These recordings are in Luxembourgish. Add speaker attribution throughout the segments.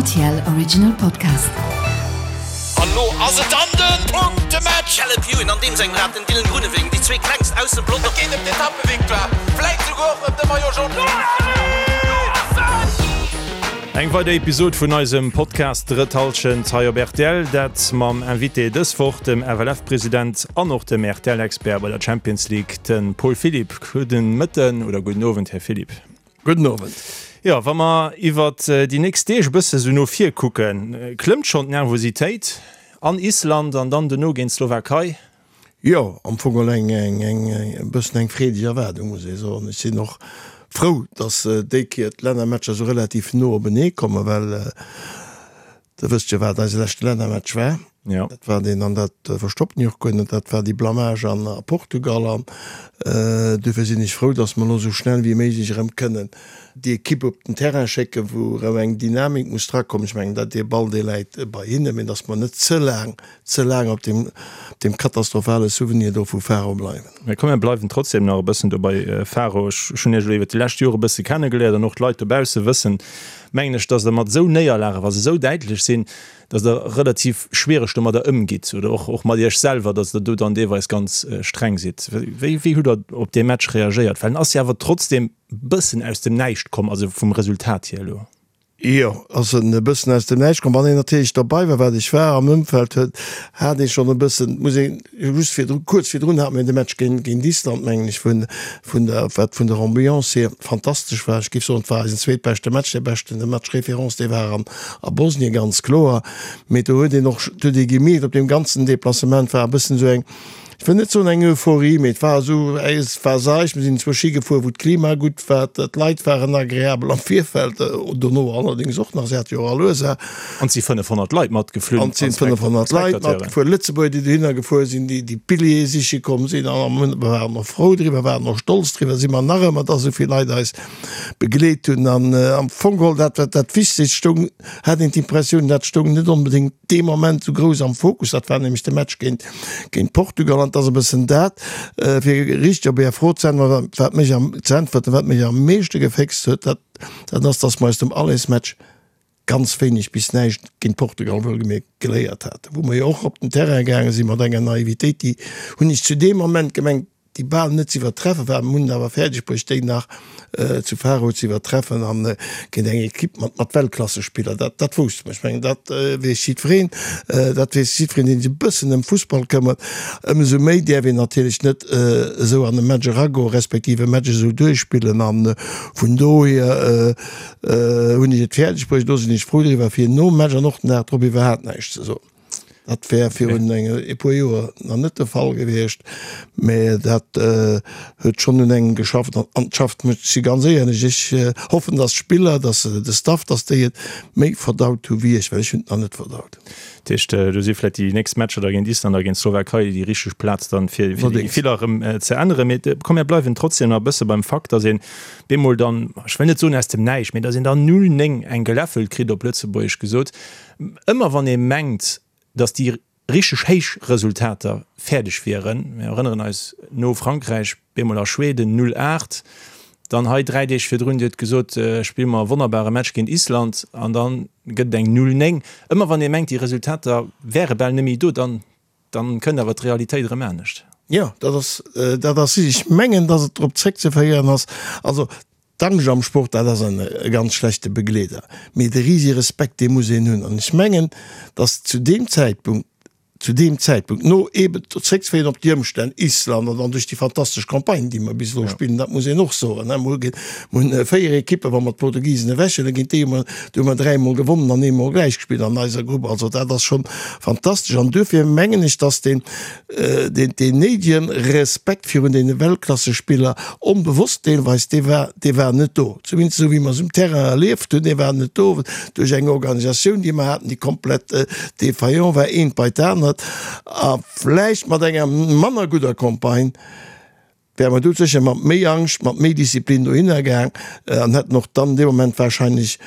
Speaker 1: RTL Original Podcast.
Speaker 2: An lo ass et dann den Punktematch!
Speaker 3: Caleb Ewan an deem sengem Rad, den Dylan Groenewegen, déi zwee klengst aus dem Pelotong.
Speaker 2: Et geet ëm d'Etappevictoire, vläit souguer och ëm de Maillot Jaune.
Speaker 4: Eng weider Episod vun eisem Podcast Drëtt Hallschent hei op rtl. Dat mam Invité dës Woch, dem FLF-President an och dem RTL-Expert bei der Champions League, de Paul Philipp. Gudden Mëtten oder gudden Owend, Här Philipp.
Speaker 5: Gudden Owend.
Speaker 4: Jo, wa mer iwwert déi nächst Deeg e bësse sou no vir kucken, klëmmt schonn d'Nervositéit an Island an dann dono géint d'Slowakei?
Speaker 5: Jo, am Fong geholl eng e bëssen eng freedeg Erwaardung, muss ee soen. Ech sinn och frou, datt déi Kéier d'Lännermatcher esou relativ no openee kommen, well Der wësst jo, wat eise leschte Lännermatch war.
Speaker 4: Ja.
Speaker 5: Dat war deen, an dat verstoppen ech och guer net, dat war déi Blamage an a Portugal. An duerfir sinn ech frou, datt mer elo esou schnell wéi méiglech erëm kënnen déi Ekipp op den Terrain schécken, wou erëm eng Dynamik muss drakommen. Ech mengen, dat dee Ball, dee läit bei hinne, mee datt mer net ze laang, ze laang op deem, op deem katastrophale Souvenir do vu Faro bleiwen.
Speaker 4: Mä komm, mir bleiwen trotzdem nach e bëssen do bei Faro. Ech hunn Iech elo iwwert déi lescht Jore e bësse kennegeléiert an och d'Leit dobausse wëssen, mengen ech, dass Der mat esou Néierlagen, wa se esou däitlech sinn, dass Der relativ schwiereg domadder ëmgitt oder och, och mat Iech selwer, dass Der do dann deelweis ganz streng sidd. Wéi, wéi hutt Der op dee Match reagéiert? Well en ass jo awer trotzdem e bëssen aus dem Näischt komm, also vum Resultat hier elo.
Speaker 5: Jo, ass en e bëssen aus dem Näischt komm. Wann een natierlech derbei war, wat ech war, am Ëmfeld huet, hat ee schonn e bëssen, muss een just virdru, kuerz virdrun hate mir de Match géint, géint Island, mengen ech, vun, vun der, wat vun der Ambiance hier fantastesch war. Ech géif soen, et war eisen zweetbeschte Match, dee beschten, de Match référence, dee war an a Bosnien, ganz kloer. Mee do huet een och, do huet ee gemierkt, op deem ganzen Deplacement war e bëssen esou eng, ech wëll net soen eng Euphorie, mee et war esou, et war seicht. Mir sinn zwou Ski gefuer, wou d'Klima gutt war, d'Leit waren agreabel am Virfeld, dono allerdéngs och nach, se hate jo och all Ursaach.
Speaker 4: An et si 500 Leit matgeflunn.
Speaker 5: An et sinn 500 Leit matgefuer, Lëtzebuerger, déi dohinner gefuer sinn, déi déi Billjeeë siche komm sinn. A mir waren och frou driwwer, waren och stolz driwwer, si mer nach ëmmer, dass esou vill Leit eis begleet hunn. An am Fong geholl, dat wat dat Wichtegst stoung, hat een d'Impressioun, dat stoung net onbedéngt dee Moment esou grouss am Fokus. Dat war nämlech de Match géint, géint Portugal. An et ass e bëssen dat, fir richteg op Är Fro ze äntweren, wat mech am, ze äntwerten, wat mech am meeschte geféxt huet, dat, dat ass, dass mer aus dem Allersmatch ganz wéineg bis näischt géint Portugal wuelgemierkt geléiert haten, wou mer jo och op den Terrain gaange si mat enger Naivitéit, déi, hunn ech zu deem Moment gemengt, déi bal net ze iwwertreffe war. Mir hunn et awer fäerdeg bruecht, déi nach zu Faro ze iwwertreffen an géint eng Ekipp mat mat Weltklassespiller. Dat dat wousste mer. Ech mengen, dat weess jiddwereen. Dat weess jiddwereen, deen sech e bëssen ëm Fussball këmmert. Ëmsou méi däerf een natierlech net esou an e Match eragoen, respektiv e Match esou duerchspillen. A vun dohier Hunn ech et fäerdeg bruecht, do sinn ech frou driwwer, fir nom Match an och den Dag drop iwwerhaapt näischt ze soen. Dat wär virun e puer Joer nach net de Fall gewiescht, mä dat huet schonn un engem geschafft an et schafft mech, ech si ganz éierlech, ech hoffen, datt d'Spiller, datt de Staff, datt déi et méi verdaut hu wéi ech, well ech hunn et nach net verdaut.
Speaker 4: Dat heescht, do si vläicht déi nächst Matcher da géint Island a géint d'Slowakei déi richteg Plaz dann, fir déi Gefiller erëm ze änneren. Mee komm, mir bleiwen trotzdem nach e bësse beim Fakt, datt een bemol dann, ech wëll net soen aus dem Näischt, mee datt een dann 0, 9 eng geläffelt kritt, op Lëtzebuergesch gesot. Ëmmer wann ee mengt, datt déi richteg héich Resultater fäerdeg wieren, mir erënneren eis, no Frankräich bemol a Schweden 0, 8, dann hei 3 Deeg virdrun, Dir hutt gesot, spille mer e wonnerbare Match géint Island an da gëtt et eng 0, 9. Ëmmer wann ee mengt, déi Resultater wäre bal net méi do, dann Dann kënnt awer d'Realitéit erëm anescht.
Speaker 5: Jo, dat ass, dat ass richteg. Ech mengen, datt et drop zréckzeféieren ass, also d'Angscht am Sport, dat ass en e ganz schlechte Begleeder, mee de risege Respekt, dee muss een hunn. An ech mengen, datt zu deem Zäitpunkt, zu deem Zäitpunkt, no eeben zréckzeféieren op déi Ëmstänn, Island an dann duerch déi fantastesch Campagne, déi mer bis elo spillen, dat muss een och soen, ne, mer hu Mir hunn 4 Ekippen, wa mer d'Portugisen ewechhuelen, géint déi hu mer, do hu mer dräimol gewonnen an eemol gläich gespillt an eiser Grupp. Also dat ass schonn fantastesch. An duerfir mengen ech, dass deen, deen, deen néidegen Respekt virun deene Weltklassespiller, onbewosst deelweis, dee war, dee war net do. Zumindest esou wéi mer se um Terrain erlieft hunn, dee war net do duerch eng Organisatioun, déi mer haten, déi komplett défaillant war, eent bei d'anert a vläicht mat enger manner gudder Campagne. Wäre mer do sécher mat méi Angscht, mat méi Disziplin dohinner gaang an hätten och dann dee Moment wahrscheinlech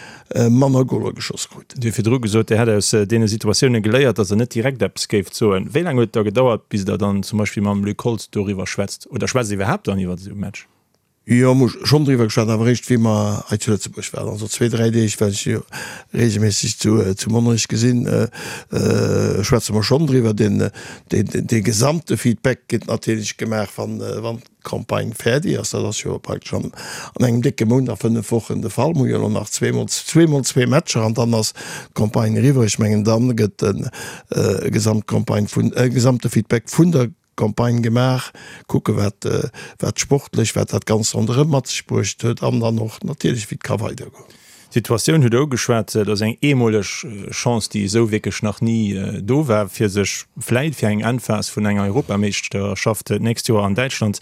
Speaker 5: manner Goler geschoss krut.
Speaker 4: Dir hutt virdru gesot, Dir hätt aus deene Situatioune geléiert, datt Der net direkt eppes géift soen. Wéi laang huet et da gedauert, bis Der dann zum Beispill mam Luc Holtz doriwwer schwätzt? Oder schwätzt Der iwwerhaapt dann iwwer esou e Match?
Speaker 5: Jo, mer hu schonn driwwer geschwat, awer eréischt wéi mer hei zu Lëtzebuerg waren. Also zwee, dräi Deeg, well ech jo reegelméisseg zu zu Monnerech gesinn, schwätze mer schonn driwwer. Den dee gesamte Feedback gëtt natierlech gemaach, wann wann d'Campagne fäerdeg ass. Dat ass jo praktesch an an engem décke Mount a 5 Wochen de Fall. Mer hu jo elo nach zweemol zweemol zwee Matcher an dann ass d'Campagne eriwwer. Ech mengen, dann gëtt e Gesamtcampagne vun e gesamte Feedback vun der Campagne gemaach, kucke wat wat sportlech, wat dat Ganzt ronderëm mat sech bruecht huet an dann och natierlech wéi et ka weidergoen.
Speaker 4: D'Situatioun hutt Der ugeschwat, dat ass eng eemoleg Chance, déi esou wierklech nach ni do war, fir sech vläit fir eng Endphas vun enger Europameeschterschaft d'nächst Joer an Däitschland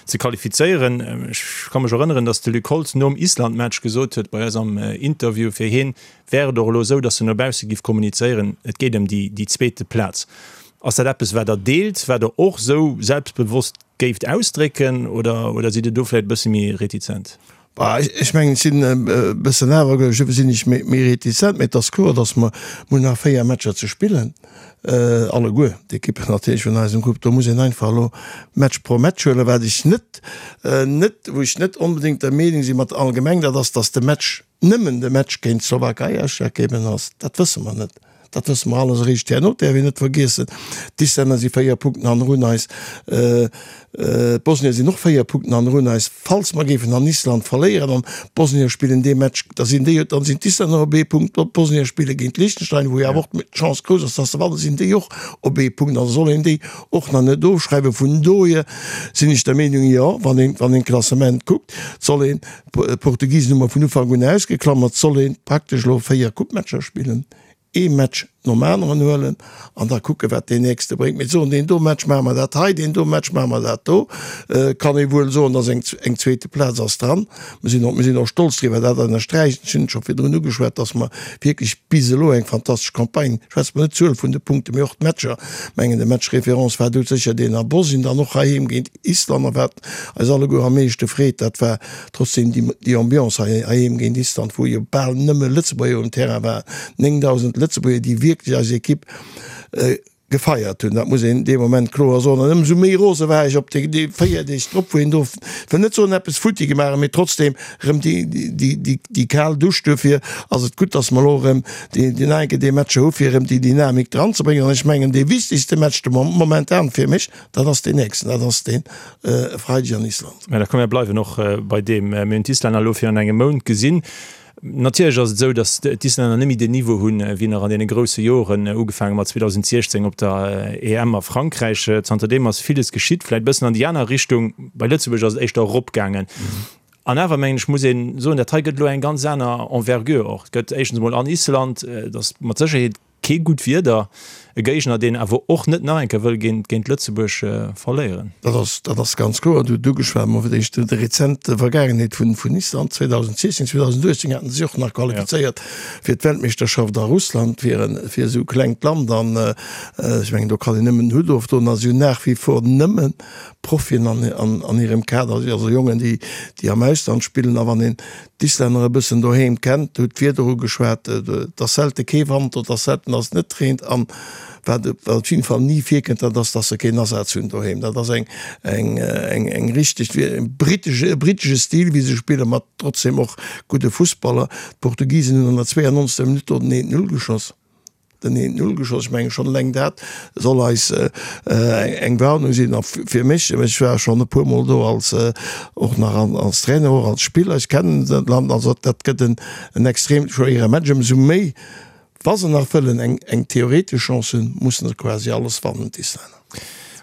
Speaker 4: ze qualifizéieren. Ech ka mech erënneren, datt de Luc Holtz nom Island-Match gesot huet bei eis am Interview, fir hien wär et och elo esou, datt en no bausse giff kommunizéieren, et geet ëm déi zweete Plaz. Ass dat eppes, wat Der deelt, wat Der och esou selbstbewosst géift ausdrécken, oder, oder sidd Der do vläicht e bësse méi retizent?
Speaker 5: Bah, ech mengen, ech sinn e bëssen awergläubesch, dofir sinn ech méi retizent. Mee et ass kloer, datt mer, mer hunn nach 4 Matcher ze spillen, alleguer d'Ekippen natierlech vun eisem Grupp. Do muss een einfach elo Match pro Match huelen. Wat ech net, net, wou ech net onbedéngt der Meenung si mat allgemeng, dat ass, datt de Match, nëmmen de Match géint d'Slowakei ausschlaggebend ass, dat wësse mer net. Dat wësse mer alles eréischt herno. Däerf een net vergiessen, d'Islänner si 4 Punkten hannerun eis, d'Bosnier sinn och 4 Punkten hannerun eis. Falls mer géifen an Island verléieren an d'Bosnier spillen dee Match, da sinn déi, dann sinn d'Islänner op ee Punkt, d'Bosnier spille géint Liechtenstein, wou jo awer och d'Chance grouss ass, dass se wannen, sinn déi och op ee Punkt. Also soll een déi och nach net ofschreiwen. Vun dohier sinn ech der Meenung, jo, wann een, wann een d'Klassement kuckt, soll een, D'Portugisen hu mer vun Ufank un ausgeklammert, soll een praktesch elo 4 Coupematcher spillen, ee Match nom aneren huelen an da kucke wat deen nächste bréngt. Mee soen, deen do Match maache mer dat hei, deen do Match maache mer dat do, kann ee wuel soen, dass eng eng zweete Plaz ass dran. Mir sinn och mir sinn och stolz driwwer, dat ënnersträichen, ech hunn et scho virdrun ugeschwat, dass mer wierklech bis elo eng fantastesch Campagne, schwätze mer net d'Zuel vun de Punkten, mee och d'Matcher, mengen de Match référence war do sécher deen a Bosnien, dann och heiheem géint Island a wat eis alleguer am meeschte freet, dat war trotzdem déi Ambiance hei heiheem géint Island, wou jo bal nëmme Lëtzebuerger um Terrain waren, 9.000 Lëtzebuerger, déi wierklech eis Ekipp gefeiert hunn. Dat muss een dee Moment kloer soen. An ëmsou méi rose war ech op déi 4 Deeg drop, wou een do, ech wëll net soen eppes futti gemaach huet, mee trotzdem erëm déi kal Dusch. Duerfir ass et gutt, datt mer elo erëm déi nach eng Kéier déi Matcher hu fir erëm déi Dynamik dranzebréngen. An ech mengen, dee wichtegste Match de momentan fir mech, Dat ass deen nächsten, dat ass dee Freideg an Island.
Speaker 4: Mä da komm mir bleiwen och bei deem. Mir hunn d'Islänner elo virun engem Mount gesinn. Natierlech ass et esou, datt d'Islänner net méi deen Niveau hunn, wéi nach an deene grousse Joren, ugefaange mat 2016 op der EM a Frankräich. Zanterdeem ass villes geschitt, vläicht e bëssen an déi aner Richtung. Bei Lëtzebuerg ass et éischter eropgaangen. An awer, mengen ech, muss ee soen, dat hei gëtt elo eng ganz aner Envergure och. Et gëtt éischtens emol an Island, et ass mat Sécherheet Kee gutt Wieder, e Géigner deen awer och net nach eng Kéier wëll géint Lëtzebuerg verléieren.
Speaker 5: Dat ass, dat ass ganz kloer. Du hutt ugeschwat, ma fir d'éischt déi rezent Vergaangenheet vun, vun Island. 2016, 2018 haten se sech och nach qualifizéiert fir d'Weltmeeschterschaft a Russland, fir en, fir esou e klengt Land. An ech mengen, do kann een nëmmen den Hutt ofdoen. A si hunn nach wie vor nëmme Profien an, an, an hirem Kader, also Jongen, déi, déi am Ausland spillen. A wann een d'Islänner e bëssen doheem kennt, hutt d'Wieder ugeschwat, et ass selte kee Wand, et ass selten, datt et net reent an wat op jidden Fall ni virkënnt, dat ass, datt se keen Asaz hunn doheem. Dat ass eng eng eng eng richteg britesch e britesche Stil wéi se spillen, mat trotzdem och gudde Fussballer. D'Portugisen hunn an der 92. Minutt do den 1-0 geschoss. Den eent Null geschoss. Ech mengen, schonn eleng dat soll eis eng Warnung sinn. A fir mech, ech war schonn e puermol do als, och nach als Trainer, och als Spiller, ech kennen dat Land, also dat gëtt en extrem schwéiere Match. Ëmsou méi, wa se nach wëllen eng theoretesch Chance hunn, mussen se quasi alles wannen, d'Islänner.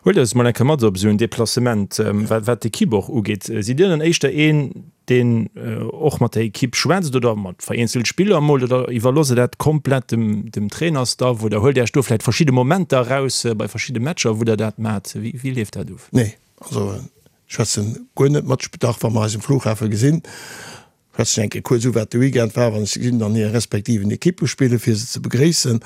Speaker 4: Huelt eis mol eng Kéier mat op esou en Deplacement, wat d'Ekipp och ugeet. Sidd Dir dann éischter een, deen och mat der Ekipp schwätzt oder mat vereenzelt Spiller emol, oder iwwerloosst Der dat komplett dem, dem Trainerstaff oder huelt Dir Iech do vläicht verschidde Momenter eraus bei verschidde Matcher, wou Der dat maacht? Wéi, wéi leeft dat of?
Speaker 5: Nee, also ech schwätzen guer net mat. Dach, wa mer eis um Flughafe gesinn, Schwätzen eng Kéier kuerz u wat de Weekend war, wann ech se gesinn, an hire respektiven Ekippe spillen, fir se ze begréissen.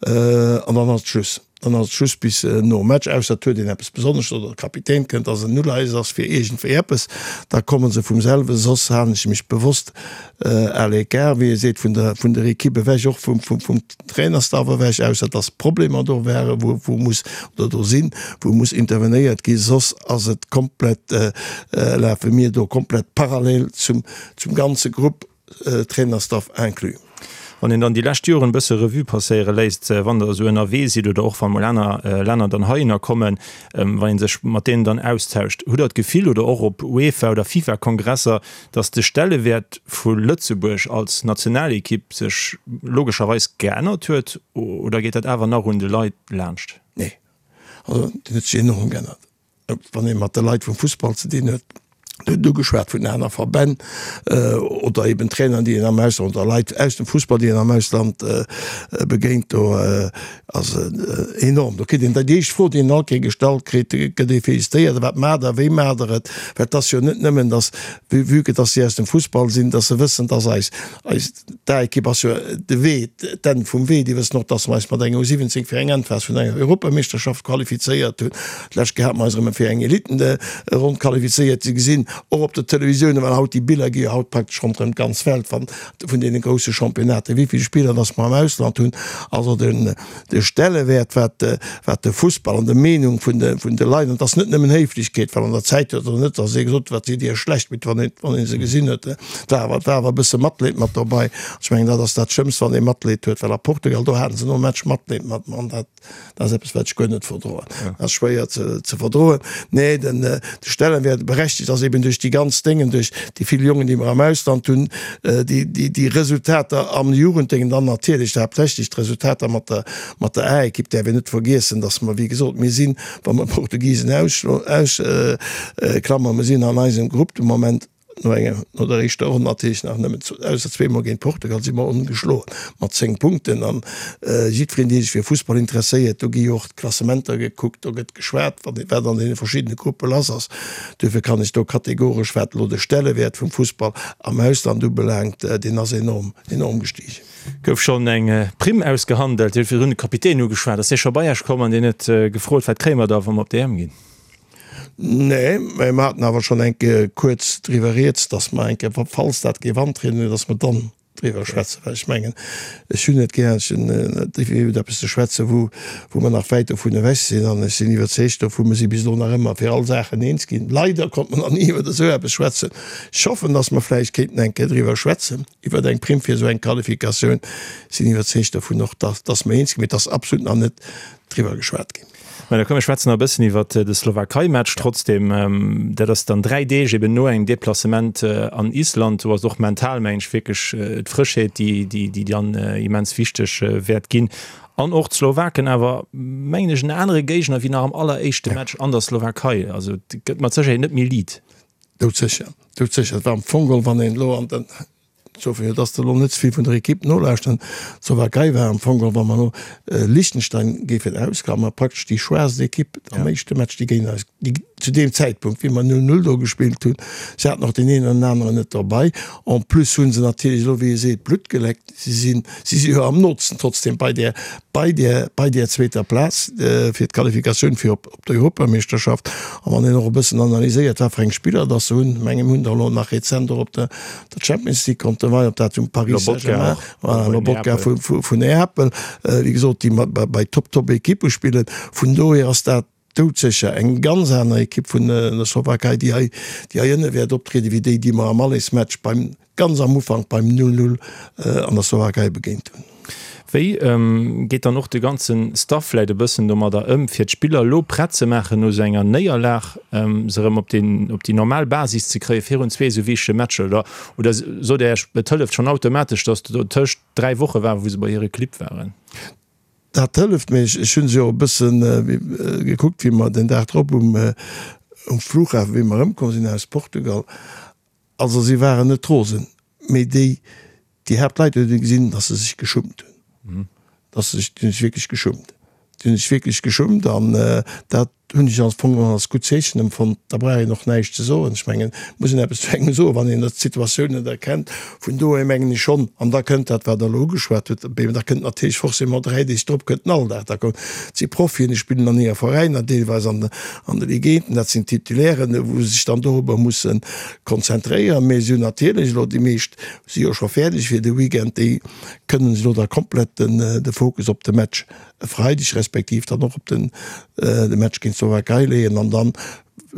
Speaker 5: An dann ass et Schluss. Dann ass et just bis nom Match, ausser et huet een eppes Besonnesches oder de Kapitän kënnt, dass en Uleies ass fir iergendwéi eppes, da komme se vum selwe. Soss halen ech mech bewosst à l'écart, wéi ee seet, vun der, vun der Equipe ewech, och vum, vum, vum Trainerstaff ewech, ausser dass Problemer do waren, wou, wou muss, oder do sinn, wou muss intervenéiert ginn. Soss ass et komplett, lafe mir do komplett parallel zum, zum ganze Grupp. Trainerstaff inclus.
Speaker 4: Wann een dann déi lescht Joren e bësse Revue passéiere léisst, wann Der esou ënnerwee sidd oder och wa mol aner Länner dann heihinner kommen, wann ee sech mat deenen dann austauscht, hutt Der d'Gefill oder och op UEFA oder FIFA-Kongresser, datt de Stellewäert vu Lëtzebuerg als Nationalekipp sech logescherweis geännert huet oder geet dat awer nach un de Leit laanscht?
Speaker 5: Nee, also deen huet sech enorm geännert. Wann ee mat de Leit vum Fussball ze dinn huet, Dir hutt ugeschwat vun aner Verbänn oder eben Traineren, déi een am Ausland oder Leit aus dem Fussball, déi een am Ausland begéint, do ass et enorm. Do kritt een déi éischt Fro, déi een all Kéier gestallt kritt, gëtt ee félicitéiert, wat maacht Der, wéi maacht Der et? Well et ass jo net nëmmen, datt, vue que datt si aus dem Fussball sinn, datt se wëssen, datt eis, eis D'A-Ekipp ass jo de Wee, d'Enn vum Wee. Déi wëssen och, dass mer eis mat enger U17 fir eng Endphas vun enger Europameeschterschaft qualifizéiert hunn. D'lescht Kéier hate mer eis erëm fir eng Elitenronn qualifizéiert. Si gesinn och op der Televisioun, well haut déi Biller gi jo haut praktesch ronderëm d'ganz Welt, wann vun deene grousse Championnaten, wéi vill Spiller dass mer am Ausland hunn. Also den de Stellewäert wat wat de Fussball an de Meenung vun de vun de Leit, an et ass net nëmmen Héiflechkeet, well an der Zäit huet der net, datt ee gesot huet, wat sidd Dir schlecht, mee wann een wann ee se gesinn huet, et war awer et war awer e bësse Matleed mat dobei. Ech mengen dat ass dat Schlëmmst, wann ee Matleed huet, well a Portugal do haten se nom Match Matleed mat mer an dat dat ass eppes wat ech guer net verdroen, dat ass schwéier ze ze verdroen. Nee den de Stellenwäert berechtigt ass eben duerch déi ganz Déngen, duerch déi vill Jongen déi mer am Ausland hunn, déi, déi, déi Resultater am Jugenddéngen, dann natierlech haaptsächlech d'Resultater mat der, mat der A-Ekipp däerf een net vergiessen, dass mer, wéi gesot, mir sinn, wa mer d'Portugisen ausklammern, mir sinn an eisem Grupp de Moment no enger, no der éischter Ronn natierlech nach nëmmen, ausser zweemol géint Portugal, si mer ongeschloen mat 10 Punkten. An jiddwereen, dee sech fir Fussball interesséiert, do gi jo och d'Klassementer gekuckt, do gëtt geschwat, wat, wat an deene verschiddene Gruppe lass ass. Duerfir kann ech do kategoresch, wat elo de Stellewäert vum Fussball am Ausland ubelaangt, deen ass enorm, enorm gestigen.
Speaker 4: Gouf schonn eng Primm ausgehandelt? Dir hutt virdrun de Kapitän ugeschwat. Ass dee scho bei Iech komm an deen huet gefrot, wat kréie mer da, wa mer op d'EM ginn?
Speaker 5: Nee, mä mer haten awer schonn eng Kéier kuerz driwwer rieds, datt mer eng Kéier, falls dat géif antrieden, datt mer dann driwwer schwätzen, well ech mengen, ech hunn net gär, ech hunn net iwwer eppes ze schwätzen, wou, wou mer nach wäit dovun ewech sinn. An ech sinn iwwerzeegt dovu, mer si bis elo nach ëmmer fir all Saachen eens ginn. Leider konnt mer nach ni iwwer esou eppes schwätzen. Ech hoffen, datt mer vläicht kéinten eng Kéier driwwer schwätzen, iwwer eng Primm fir esou eng Qualifikatioun. Sinn iwwerzeegt dovun och, datt, datt mer eens ginn, mee et ass absolut nach net driwwer geschwat ginn.
Speaker 4: Mä da komm mir schwätzen nach e bëssen iwwert de Slowakei-Match trotzdem. Dat ass dann 3 Deeg eben no engem Deplacement an Island. Do ass och mental, mengen ech, wierklech d'Frëschheet, déi, déi dann immens wichteg wäert ginn. An och d'Slowaken awer, mengen ech, en anere Géigner wéi nach am alleréischte Match an der Slowakei. Also et gëtt mat Sécherheet net méi liit.
Speaker 5: Doudsécher, doudsécher. Et war am Fong geholl, wann een elo an den Sophie, jo, dass de elo net ze vill vun der Equipe nolauschteren. D'Slowakei war am Fong geholl, wa mer elo Liechtenstein géifen ausklammern, praktesch déi schwaachst Equipe am éischte Match, déi géint eis, déi zu deem Zäitpunkt, wéi mer 0, 0 do gespillt hunn. Se haten och deen een an den aneren net derbei. En plus hu se natierlech elo, wéi ee seet, Blutt geleckt. Si sinn, si si jo am nootsten trotzdem bei där, bei där, bei där zweeter Plaz fir d'Qualifikatioun fir op, op d'Europameeschterschaft. A wann een och e bëssen analyséiert, wat fir eng Spiller dass se hunn, menge mir hunn der elo nach rezent och op der, der Champions League konnte wei, ob dat um Paris Saint-Germain, voilà, Lobotka vu, vu, vun Neapel, wéi gesot, déi mat, bei, bei Top, Top Ekippe spillen. Vun dohier ass dat doudsécher eng ganz aner Ekipp vun der Slowakei, déi hei, déi hei ënne wäert optrieden, wéi déi, déi mer am Allesmatch beim, ganz am Ufank beim 0, 0 an der Slowakei begéint hunn.
Speaker 4: Wéi geet dann och de ganze Staff vläit e bëssen domadder ëm, fir d'Spiller elo prett ze maachen no esou enger Néierlag, se erëm op den, op déi normal Basis ze kréie virun zwee esou wichtege Matcher? Oder, oder sot Dir Iech, et hëlleft schonn automatesch, datt do tëscht 3 Woche war, wou se bei hire Clibb waren?
Speaker 5: Dat hëlleft mir. Ech hu se jo e bësse gekuckt, wéi mer den Dag drop um Flughafen, wéi mer erëmkomm sinn aus Portugal. Also si waren net rosen, mee déi, déi Haaptleit huet ee gesinn, datt se sech geschummt hunn, datt se sech, déi hunn sech wierklech geschummt, déi hunn sech wierklech geschummt an dat. hunn ech am Fong geholl als gutt Zeechen empfonnt. Da brauch een och näischt ze soen. Ech mengen, et muss een eppes zu engem soen, wann een d'Situatioun net erkennt. Vun dohier mengen ech schonn, an da kënnt dat, wat Der elo ugeschwat hutt, da kënnt natierlech forcément 3 Deeg drop kënnt den Alldag. Da kommen, et si Profien, déi spillen an hire Veräiner, deelweis an de Ligenten, dat sinn Titulairen, wou se sech dann dorobber musse konzentréieren. Mee si hunn natierlech elo, déi meescht si jo scho fäerdeg fir de Weekend, déi kënnen elo da komplett de Fokus op de Match e Freideg respektiv dann och op den de Match géint d'Slowakei leeën an dann,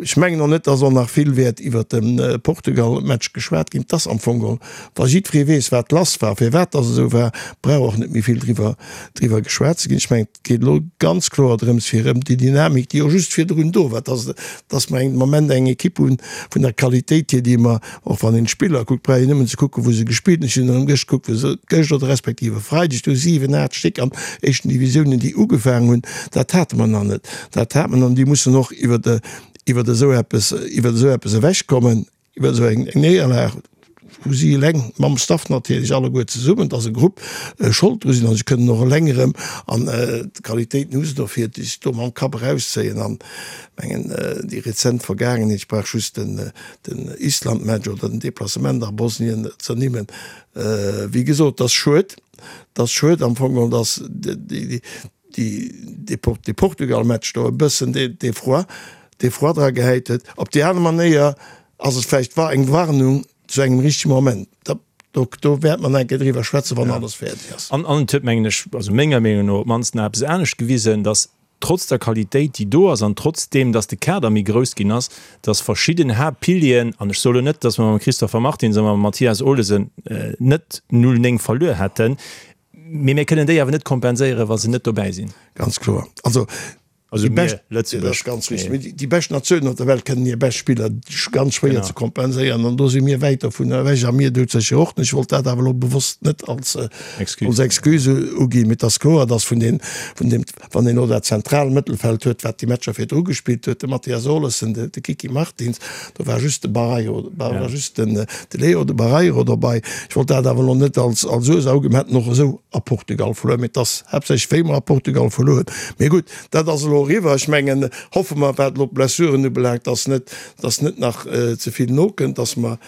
Speaker 5: ech mengen och net, dass och nach vill wäert iwwert de Portugal-Match geschwat ginn. 't ass am Fong geholl, wa jiddweree weess, wat lass war, firwat dass et esou war, brauch och net méi vill driwwer driwwer geschwat ze ginn. Ech mengen, et geet elo ganz kloer drëms, fir erëm déi Dynamik, déi jo just virdrun do war, dass dass mer eng Moment eng Ekipp hunn vun der Qualitéit hier, déi mer Och wann een d'Spiller kuckt, brauch een nëmmen ze kucken, wou se gespillt hunn. Ech hunn erëm gëscht gekuckt, wou se gëscht oder respektiv e Freideg, do 7, 8 Stéck an éischten Divisiounen, déi ugefaangen hunn. Dat hate mer nach net. Dat hat mer an déi mussen och iwwer iwwer esou eppes, iwwer esou eppes ewechkommen, iwwer esou eng Néierlag, wou si eleng, mam Staff natierlech, alleguer zesummen, et ass e Grupp, Schold dru sinn. A se kënnen och eleng erëm, an d'Qualitéiten hu se dofir, sech do mam Kapp erauszéien. An mengen, déi rezent Vergaangenheet, ech brauch just den den Island-Match oder den Deplacement a Bosnien z'ernimmen. Wéi gesot, et ass schued, et ass schued am Fong geholl, datt dee Portugal-Match do e bëssen dee Froid, dee Froid dra gehäit huet. Op déi aner Manéier ass et vläicht war eng Warnung zu engem richtege Moment. Do, do wäerte mer nach eng Kéier driwwer schwätzen, wann alles fäerdeg ass.
Speaker 4: An et huet, mengen ech, also menger Meenung no op d'mannst nach eppes anescht gewisen, datt trotz der Qualitéit, déi do ass, an trotz deem, dass de Kader méi grouss ginn ass, dass verschidden Haaptpilieren, an ech soe lo net, dass mer mam Christopher Martins a mam Mathias Olesen net 0, 9 verluer hätten, mee mir kënnen déi awer net kompenséieren, wa se net dobäi sinn.
Speaker 5: Ganz kloer. Also
Speaker 4: déi bescht, dat ass
Speaker 5: ganz richtig, mee déi bescht Natiounen op der Welt kënnen hir bescht Spiller ganz schwéier ze kompenséieren an do si mir wäit dovun ewech a mir doudsécher och net. Ech wollt dat awer elo bewosst net als Excuse uginn, mee et ass kloer, dass vun deem, Wann een elo dat zentral Mëttelfeld huet, wat déi Matcher virdru gespillt huet, de Mathias Olesen, de Kiki Martins, do war just de Barreiro, war just den de Leo, de Barreiro dobei. Ech wollt dat awer elo net als als Ursaach uginn. Mir hätten och esou a Portugal verluer, mee et ass haaptsächlech wéi mer a Portugal verluer hunn. Mee gutt, dat ass elo eriwwer. Ech mengen, hoffe mer, wat elo d'Blessuren ubelaangt, dass net dass net nach ze vill nokënnt, dass mer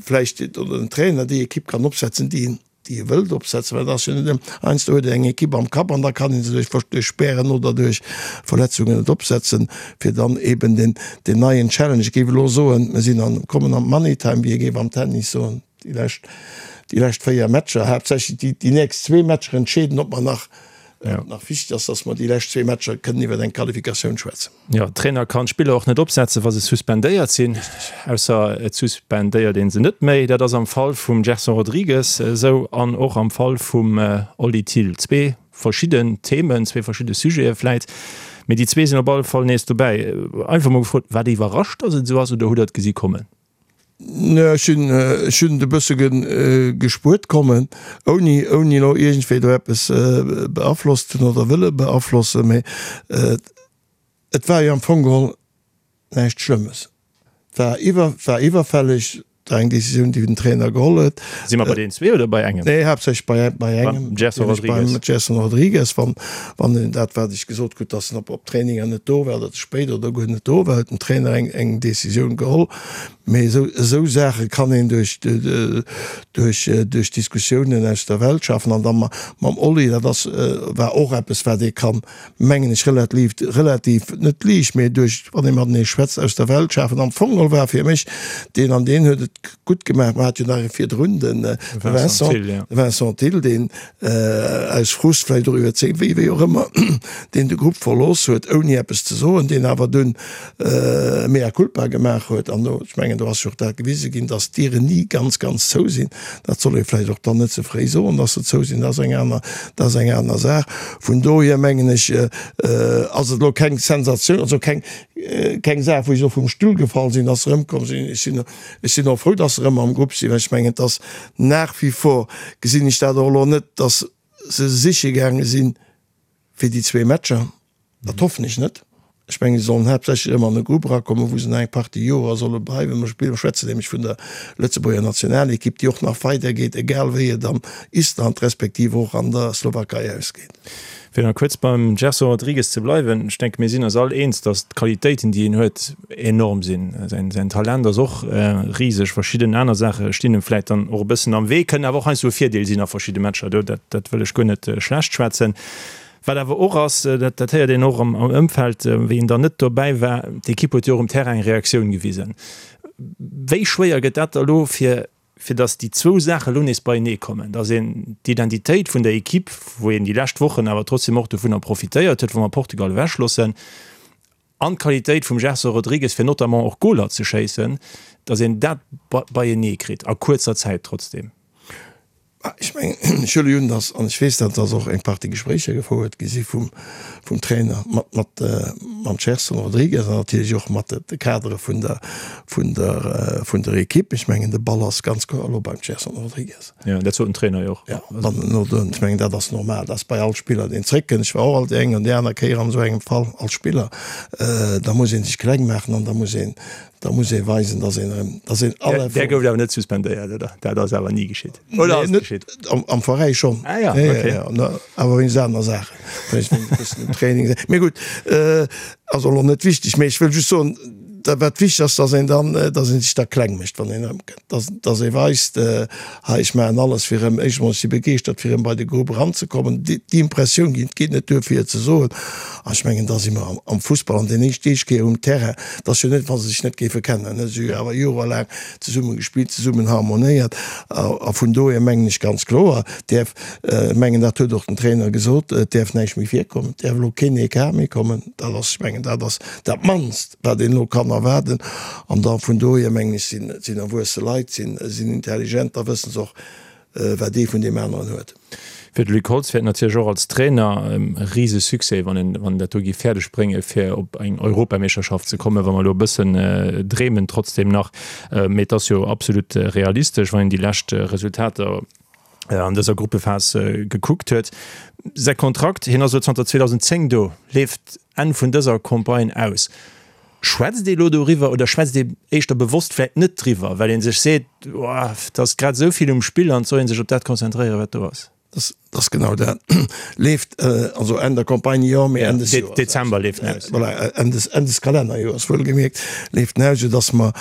Speaker 5: vläicht oder den Trainer déi Ekipp kann opsetzen, déi en déi e wëllt opsetzen, well et ass jo net ëm, heiansdo huet een eng Ekipp am Kapp an da kann ee se duerch duerch Spären oder duerch Verletzungen net opsetzen, fir dann eben den den neien Challenge, ech géif elo soen, mir sinn an kommen an d'Money Time, wéi ee géif am Tennis soen, déi lescht déi lescht 4 Matcher, haaptsächlech déi déi nächst zwee Matcher entscheeden, ob mer nach nach wichteg ass, dass mer déi lescht zwee Matcher kënnen iwwer eng Qualifikatioun schwätzen.
Speaker 4: Jo, Trainer kann d'Spiller och net opsetzen, wa se suspendéiert sinn, ausser et suspendéiert ee se net méi. Dat ass am Fall vum Gerson Rodrigues esou an och am Fall vum Oli Thill. Zwee verschidden Themen, zwee verschidde Sujete vläit, mee déi zwee sinn op alle Fall nees dobäi. Einfach mol gefrot, Waart Dir iwwerrascht, datt et esou ass oder hutt Der et gesi kommen?
Speaker 5: Nee, ech hunn, ech hunn et e bësse gespuert kommen, ouni, ouni elo iergendwéi do eppes beaflosst ze hunn oder wëlle beaflossen, mee et war jo am Fong geholl näischt Schlëmmes. Et war iwwer, war iwwerfälleg, et war eng Decisioun, déi den Trainer geholl huet.
Speaker 4: Si mer bei deenen zwee oder bei engem?
Speaker 5: Nee, haaptsächlech bei, bei engem.
Speaker 4: Beim Gerson Rodrigues.
Speaker 5: Beim Gerson Rodrigues, wann, wann en dat, wat ech gesot krut, dass en op, op Traininger net do war oder ze spéit oder guer net do war, huet den Trainer eng, eng Decisioun geholl. Mee esou, esou Saache kann een duerch, duerch, duerch Diskussiounen aus der Welt schafen. An da mam Oli, dat ass, war och eppes, wat ee kann, mengen ech, relativ, relativ, net liicht, mee duerch, wann ee matenee schwätzt, aus der Welt schafen. Am Fong geholl war fir mech deen, an deen huet et gutt gemaach, mer hate jo nach ee virdrun, de Vincent, de Vincent Thill, deen aus Frust vläicht och iwwerzeegt, wéi, wéi och ëmmer, deen de Grupp verlooss huet, ouni eppes ze soen, deen awer dunn mea culpa gemaach huet. An do, ech mengen, do ass jo och dat gewise ginn, dass d'Dieren ni ganz, ganz zou sinn. Dat soll ee vläicht och dann net ze fréi soen, dass se zou sinn, dat ass eng aner, dat ass eng aner Saach. Vun dohier mengen ech, ass et elo keng Sensatioun, also keng, keng Saach, wou ech elo vum Stull gefall sinn, dass se erëmkomm sinn. Ech sinn, ech sinn och frou, dass se erëm am Grupp sinn, well ech mengen, et ass nach wie vor, gesinn ech dat och elo net, dass se siche gaange sinn fir déi zwee Matcher. Dat hoffen ech net. Ech mengen, se sollen haaptsächlech erëm an e Grupp erakommen, wou se nach eng Partie Jorer solle bleiwen. Mer spillen, mer schwätzen nämlech vun der Lëtzebuerger Nationalekipp, déi och nach weidergeet, egal wéi et an Island respektiv och an der Slowakei ausgeet.
Speaker 4: Fir nach kuerz beim Gerson Rodrigues ze bleiwen, ech denke mir sinn eis all eens, datt d'Qualitéiten, déi en huet, enorm sinn. Säin Talent ass och riseg. Verschidden aner Saache stinn em vläit dann och e bëssen am Wee, kënnen awer och heiansdo e Virdeel sinn a verschidde Matcher. Do, dat, dat wëll ech guer net schlecht schwätzen. Wat awer och ass, dat, dat héiert een och am, am Ëmfeld, wéi en dann net dobäi war, d'Ekipp huet jo och um Terrain eng Reaktioun gewisen. Wéi schwéier gëtt dat da lo fir fir datt déi zwou Saache lo nees beienee kommen, datt een d'Identitéit vun der Equipe, wou een déi lescht Wochen awer trotzdem och dovunner profitéiert huet, wa mer Portugal ewechloossen, an d'Qualitéit vum Gerson Rodrigues, fir notamment och Goler ze schéissen, datt een dat beienee kritt a kuerzer Zäit trotzdem.
Speaker 5: Ech mengen, ech huele un, datt, an ech weess dat, datt och eng Partie Gespréicher gefouert gi si vum, vum Trainer mat, mat, mam Gerson Rodrigues an natierlech och mat de Kadere vun der, vun der, vun der Ekipp. Ech mengen, de Ball ass ganz kloer elo beim Gerson Rodrigues.
Speaker 4: Jo, dat sot den Trainer jo och.
Speaker 5: Jo, wann en elo do, ech mengen, dat ass normal, dat ass bei all Spiller, deen zréckkënnt. Ech war och alt déi eng an déi aner Kéier an esou engem Fall als Spiller. Da muss ee sech kleng maachen an da muss een, Da muss ee weisen, dass een erëm, dass een
Speaker 4: alle. Där gouft awer net suspendéiert, oder? Dat ass awer ni geschitt,
Speaker 5: oder ass et geschitt? Am Veräi schonn.
Speaker 4: Ah ja, okay.
Speaker 5: Awer wéinst aner Saachen, wéinst e bëssen um Training. Mee gutt, ass och elo net wichteg. Mee ech wëll just soen, dat wat wichteg ass, dass een dann, dass ee sech da kleng mécht, wann een erëmkënnt. Dass, dass ee weist, hei ech maachen alles fir erëm, éischt emol ech si begeeschtert fir erëm bei de Grupp eranzekommen, déi Impressioun ginn. Et geet net duer fir et ze soen. An ech mengen, da si mer am Fussball an deen éischt éischt Kéier um Terrain, et ass jo net wa se sech net géife kennen, se hu jo awer jorelaang zesumme gespillt, zesummen harmonéiert. A vun dohier mengen ech ganz kloer, däerf, ech mengen dat huet och den Trainer gesot, et däerf näischt méi virkommen, et däerf elo keen Ecart méi kommen. Dat ass, ech mengen dat ass dat mannst. wat een elo kann erwaarden. An da vun dohier, mengen ech, sinn et sinn erwuesse Leit, sinn sinn intelligent, da wësse se och, wat ee vun deem aneren huet.
Speaker 4: Fir de Luc Holtz wär et natierlech och als Trainer e rise Succès, wann en wann en dat do géif fäerdeg brénge fir op eng Europameeschterschaft ze kommen, wa mer elo e bëssen dreemen trotzdem nach. Mee et ass jo absolut realistesch, wann een déi lescht Resultater an dëser Gruppephas gekuckt huet. Säi Kontrakt, hien ass elo zanter 2010 do, leeft Enn vun dëser Campagne aus. Schwätzt ee elo doriwwer oder schwätzt ee éischter bewosst vläicht net driwwer, well ee sech seet, oh, et ass grad esou vill um Spill an et soll ee sech op dat konzentréieren, wat do ass?
Speaker 5: Dat ass genau dat. Leeft also Enn der Campagne, jo, mee Enn des Joers.
Speaker 4: Dezember leeft en aus.
Speaker 5: Voilà, Enn des, Enn des Kalennerjoers, wuelgemierkt, leeft en aus, soudass mer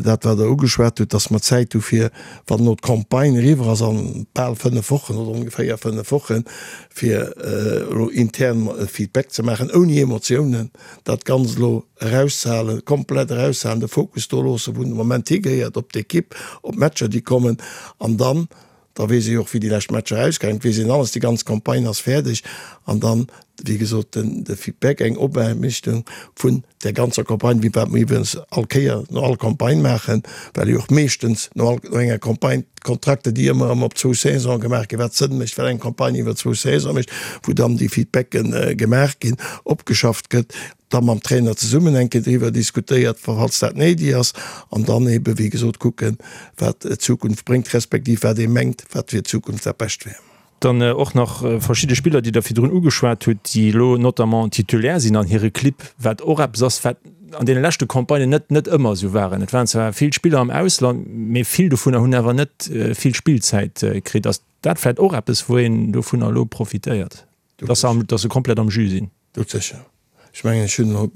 Speaker 5: dat, wat Der ugeschwat hutt, dass mer Zäit hu fir Wann elo d'Campagne eriwwer ass an bal 5 Wochen oder ongeféier 5 Wochen, fir elo intern e Feedback ze maachen, ouni Emotiounen, dat Ganzt elo eraushalen, komplett eraushalen, de Fokus do loossen, wou en de Moment higehéiert, op d'Ekipp, op d'Matcher, déi kommen. An dann, da weess ee jo och, wéi déi lescht Matcher ausgaangen, et weess een alles, déi ganz Campagne ass fäerdeg. An dann, wéi gesot, den de Feedback, eng Opaarbechtung vun där ganzer Campagne, wéi wat mer iwwregens all Kéier no all Campagne maachen, well jo och meeschtens no all no enger Campagne d'Kontrakter, déi ëmmer erëm op zwou Saisone gemaach ginn, wat Sënn mécht, well eng Campagne iwwer zwou Saisone mécht, wou dann déi Feedbacken gemaach ginn, opgeschafft gëtt, da mam Trainer zesummen eng Kéier driwwer diskutéiert, falls dat néideg ass, an dann ebe wéi gesot kucken, wat d'Zukunft bréngt, respektiv wat ee mengt, wat fir d'Zukunft dat Bescht wär.
Speaker 4: Dann och nach verschidde Spiller, déi Der virdrun ugeschwat hutt, déi elo notamment Titulaire sinn an hire Clibb, wat och eppes ass, wat an deene leschte Campagnen net net ëmmer esou waren. Et waren zwar vill Spiller am Ausland, mee vill dovunner hunn awer net vill Spillzäit kritt. Ass dat vläicht och eppes, wou een dovunner elo profitéiert, dass se dass se komplett am Jus sinn?
Speaker 5: Doudsécher. Ech mengen, ech hunn elo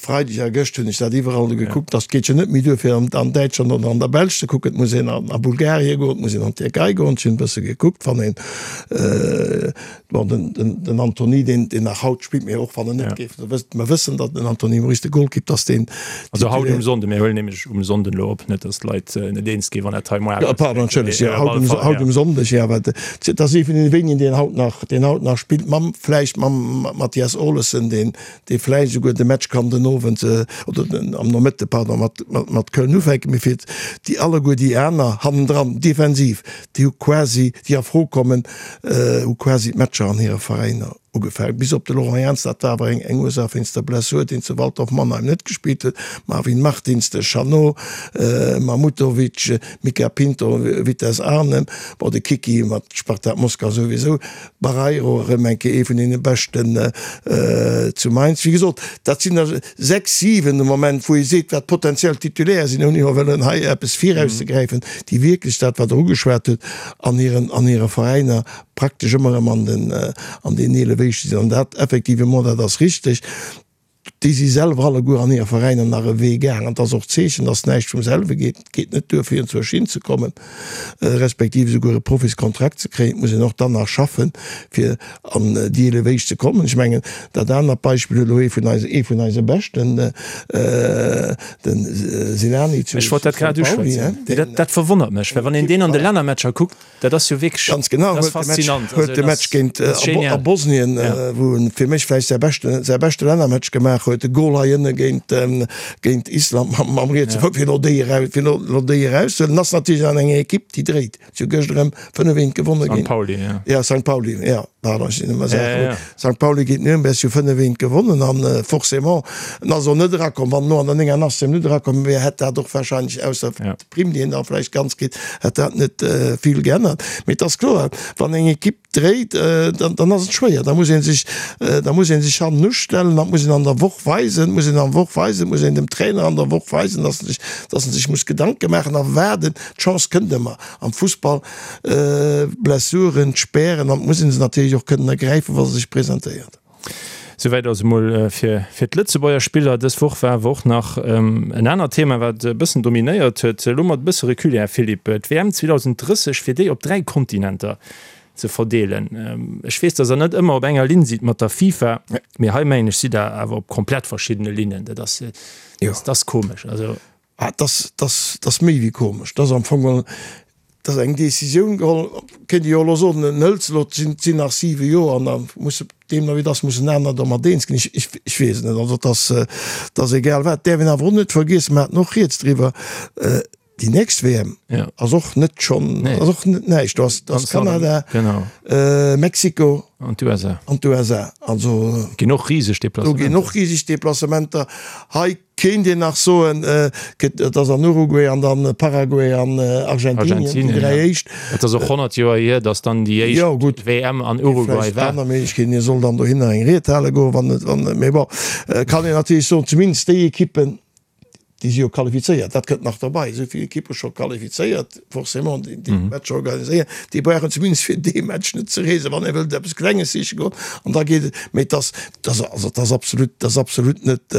Speaker 5: Freideg a gëscht hunn ech dat iwwerall do gekuckt, dass geet jo net méi duer fir an Däitschland oder an der Belsch ze kucken, et muss een a Bulgarien goen, et muss een an d'Tierkei goen. Ech hunn e bësse gekuckt, wann een, bon, den, den, den Antony, deen, deen nach haut spillt, mee och wann en net géif, mer wëssen, datt den Antony Maurice, de Golkipp, dass deen.
Speaker 4: Also haut um Sonnden, mir huelen nämlech um Sonnden elo op, net datt d'Leit net eens ginn, wann dat hei
Speaker 5: moar. Pardon, entschëllegt, jo, haut um, haut um Sonndeg, jo, awer dat ass ee vun deene wéinigen, deen haut nach, deen haut nach spillt, mam, vläicht mam Mathias Olesen, deen, dee vläicht esouguer de Match kann den Owend oder den am Nomëtte, pardon, mat, mat, mat Köln ufänken, mee fir déi alleguer déi aner hannendran, defensiv, déi hu quasi, déi a Fro kommen, hu quasi d'Matcher an hire Veräiner. Ugefaangen, bis op de Laurent Jans, dat war awer eng eng Ursaach wéinst der Blessur, deen zu Waldhof Mannheim net gespillt huet, Marvin Martins, de Chanot, Mahmutovic, Mica Pinto, Vitesse Arnhem, bon de Kiki mat Spartak Moskau souwisou, Barreiro erëm eng Kéier ee vun deene beschten zu Mainz. Wéi gesot, dat sinn der 6, 7 de Moment, wou ee seet, wat potentiell Titulaire sinn, ouni elo wëllen hei eppes virauszegräifen, déi wierklech dat, wat Der ugeschwat hutt, an hiren an hire Veräiner praktesch ëmmer erëm an den an den 11 éischte sinn. An dat effectivement, dat ass richteg, déi si selwer alleguer an hire Veräiner nach e Wee gaang. An et ass och d'Zeechen, dass näischt vum selwe geet. Et geet net duer, fir enzwousch hinzekommen, respektiv esouguer e Profiskontrakt ze kréien. Et muss een och dann nach schaffen, fir an déi 11 éischt ze kommen. Ech mengen, dat anert Beispill huet elo ee vun eise, ee vun eise Beschten, de Sinani zu
Speaker 4: Ech wollt dat grad
Speaker 5: Sankt Pauli,
Speaker 4: uschwätzen. Dat, dat verwonnert mech, well wann een deen an de Lännermatcher kuckt, Dat ass jo wierklech,
Speaker 5: Ganz genau,
Speaker 4: dat ass
Speaker 5: huet de Match,
Speaker 4: faszinant.
Speaker 5: huet
Speaker 4: Also
Speaker 5: de
Speaker 4: dat
Speaker 5: Match
Speaker 4: ass,
Speaker 5: géint
Speaker 4: dat ass
Speaker 5: a Bo- a
Speaker 4: genial.
Speaker 5: Bosnien,
Speaker 4: Ja.
Speaker 5: wou en fir mech vläicht säi beschte, säi beschte Lännermatch gemaach huet, de Gol hei ënne géint, géint Island mam, mam rietse
Speaker 4: Ja.
Speaker 5: Fouss, fir elo déi eraus, fir elo, elo déi erauszehuelen. En ass natierlech an enger Ekipp, déi dréit. Si hu gëscht erëm 5, 1 gewonne
Speaker 4: Sankt
Speaker 5: géint,
Speaker 4: Pauli, ja.
Speaker 5: ja, Sankt Pauli, ja, pardon, ech sinn ëmmer
Speaker 4: Ja,
Speaker 5: Saachen,
Speaker 4: ja, ja.
Speaker 5: Sankt Pauli géint Nürnberg, si hu 5, 1 gewonnen an forcément, en ass och net erakomm. Wann en elo an der 89. Minutt erakomm wier, hätt dat och wahrscheinlech, ausser
Speaker 4: Ja.
Speaker 5: D'Primm, déi een da vläicht ganz kritt, hätt dat net vill geännert. Mee et ass kloer, wann eng Ekipp dréit, dann ass et schwéier. Da muss ee sech, da muss ee sech hannen ustellen, dat muss een an der Woch weisen, muss een an der Woch weisen, muss een dem Trainer an der Woch weisen, datt en sech, datt en sech muss Gedanke maachen a waarden. D'Chance kënnt ëmmer am Fussball, Blessuren, d'Spären, an et muss ee se natierlech och kënnen ergräifen, wa se sech presentéiert.
Speaker 4: Souwäit also mol fir fir d'Lëtzebuerger Spiller. Dës Woch war awer och nach en anert Thema, wat e bëssen dominéiert huet. Elo mat e bësse Recul, Här Philippe, d'WM 2030, fir déi op 3 Kontinenter ze verdeelen. Ech weess, datt Der net ëmmer op enger Linn sidd mat der FIFA, mee hei mengen ech, sidd Der awer op komplett verschiddene Linnen. Dat ass, dat ass komesch. Also.
Speaker 5: Ah, 't ass, 't ass, 't ass méi wéi komesch. 't ass am Fong geholl, 't ass eng Décisioun geholl, kéint ee jo elo soen, en hëlt se elo, 't sinn, 't sinn nach siwe Joer an da muss deemno wéi 't ass mussen aner domat eens ginn. Ech, ech, ech weess et net. Also 't ass, 't ass egal wat. 't däerf een awer och net vergiessen, mer haten och rieds driwwer, déi nächst WM ass och net schonn, ass och net näischt. Do ass, do ass Kanada, Mexiko
Speaker 4: an d'USA.
Speaker 5: An d'USA. Also.
Speaker 4: Ginn och riseg
Speaker 5: Deplacementer. Do ginn och riseg Deplacementer. Hei Kéint een nach soen, et ass an Uruguay an dann Paraguay an Argentinien, déi 3 éischt.
Speaker 4: Et ass och 100 Joer hier, datt dann déi éischt WM an Uruguay
Speaker 5: war. Aner Méiglechkeeten, hie soll dann dohinner eng Ried hale goen, wann et, wann, mee bon, kann een natierlech soen, zumindest déi Ekippen, déi si jo qualifizéiert, dat kënnt nach derbei, esou vill Ekippe scho qualifizéiert. forcément déi déi Matcher organiséieren, déi brauchen zumindest fir dee Match net ze reesen, wann ee wëllt eppes Klenges siche goen an da geet et. Mee et ass, et ass, also et ass absolut, et ass absolut net,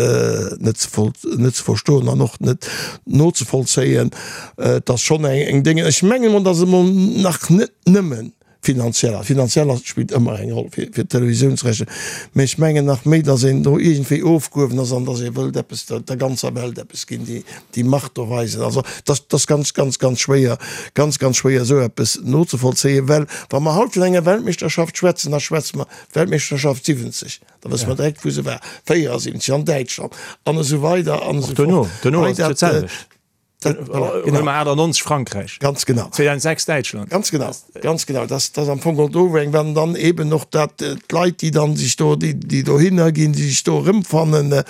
Speaker 5: net ze voll, net ze verstoen an och net nozevollzéien. Et ass schonn eng, eng Dénge, ech mengen emol, datt et emol nach net nëmmen Finanziell, a finanziell ass, spillt ëmmer eng Roll fir, fir d'Televisiounsrechter, mä ech mengen nach méi, datt een do iergendwéi ofgehuewen ass an datt ee wëllt eppes der, der ganzer Welt eppes ginn, déi, déi Macht do weisen. Also et ass, et ass ganz, ganz, ganz schwéier, ganz, ganz schwéier esou eppes nozevollzéien, well wa mer haut vun enger Weltmeeschterschaft schwätzen, da schwätze mer Weltmeeschterschaft 70, da wësse mer direkt wou se war, 74 an Däitschland an esou weider an
Speaker 4: Och
Speaker 5: esou
Speaker 4: duerno,
Speaker 5: fort.
Speaker 4: duerno
Speaker 5: Hei
Speaker 4: ass et jo
Speaker 5: dat,
Speaker 4: d'selwecht.
Speaker 5: Dat, voilà,
Speaker 4: genau. 98 Frankräich.
Speaker 5: Ganz genau.
Speaker 4: 2006 Däitschland.
Speaker 5: Ganz genau, ganz genau. Das, das am Fong do eng, wann dann eben och dat äh, d'Leit, déi dann sich do, déi, déi dohinner ginn, déi sich do erëmfannen, äh,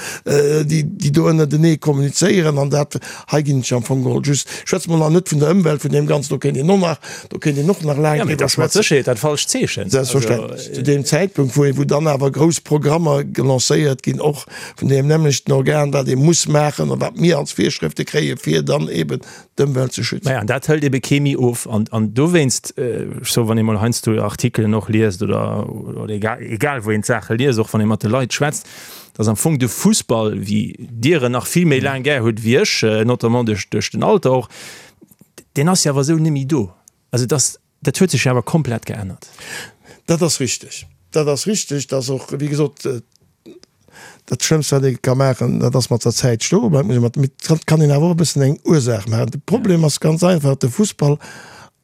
Speaker 5: déi, déi do ënnertenee kommunizéieren an dat hei ginn ech am Fong geholl just, schwätze mer nach net vun der Ëmwelt, vun deem Ganzen, do kéint een och nach, do kéint een och nach laang
Speaker 4: Ja, mee
Speaker 5: driwwer
Speaker 4: dat ass mat
Speaker 5: schwätzen.
Speaker 4: Sécherheet dat falscht Zeechen.
Speaker 5: Selbstverständlech. Zu deem Zäitpunkt, wou, wou dann awer grouss Programmer gelancéiert ginn, och vun deem nämmlechten Organ, wat ee muss maachen a wat mir als Virschrëfte kréien, fir dann eben d'Ëmwelt ze schützen.
Speaker 4: Maja, an dat hëlt ebe kee méi of. An, an dowéinst, ech soe, wann ee mol heiansdo Artikelen och liest oder, oder egal, egal wou een d'Saache liest, och wann ee mat de Leit schwätzt, dass am Fong de Fussball, wéi Dir en nach vill méi laang gär hutt wéi ech, notamment duerch, duerch den Alter och, deen ass jo awer esou net méi do. Also dass, Dat huet sech jo awer komplett geännert.
Speaker 5: Dat ass richteg. Dat ass richteg, dass och, wéi gesot, dat Schlëmmst, wat ee ka maachen, dat ass mat der Zäit stoe bleiwen. Muss ee mat, mee et kann een awer och e bëssen eng Ursaach maachen. De Problem ass ganz einfach, de Fussball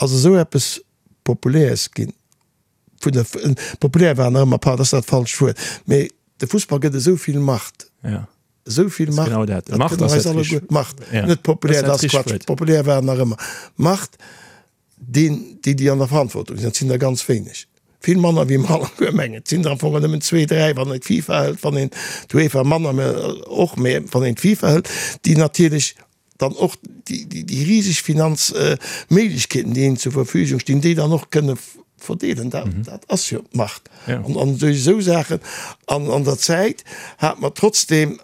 Speaker 5: ass esou eppes Populäres ginn, vun der, populär war nach ëmmer, pardon, dat ass dat falscht Wuert, mee de Fussball gëtt esou vill Macht. Esou vill Macht,
Speaker 4: genau dat. Macht ass dat richteg.
Speaker 5: Macht, net populär, dat ass Quatsch. Populär war en nach ëmmer. Macht. Deen, déi, déi an der Verantwortung sinn, dat sinn der ganz wéineg. Vill manner wéi mer alleguer mengen. Et sinn der am Fong nëmmen zwee, dräi, wann een d'FIFA hëlt, wann een d'UEFA manner, mä och, mä wann een d'FIFA hëlt, déi natierlech dann och déi riseg Finanzméiglechkeeten, déi hinnen zur Verfügung stinn, déi dann och kënne verdeelen. Dat ass jo d'Macht. An duerch esou Saachen an an der Zäit hate mer trotzdem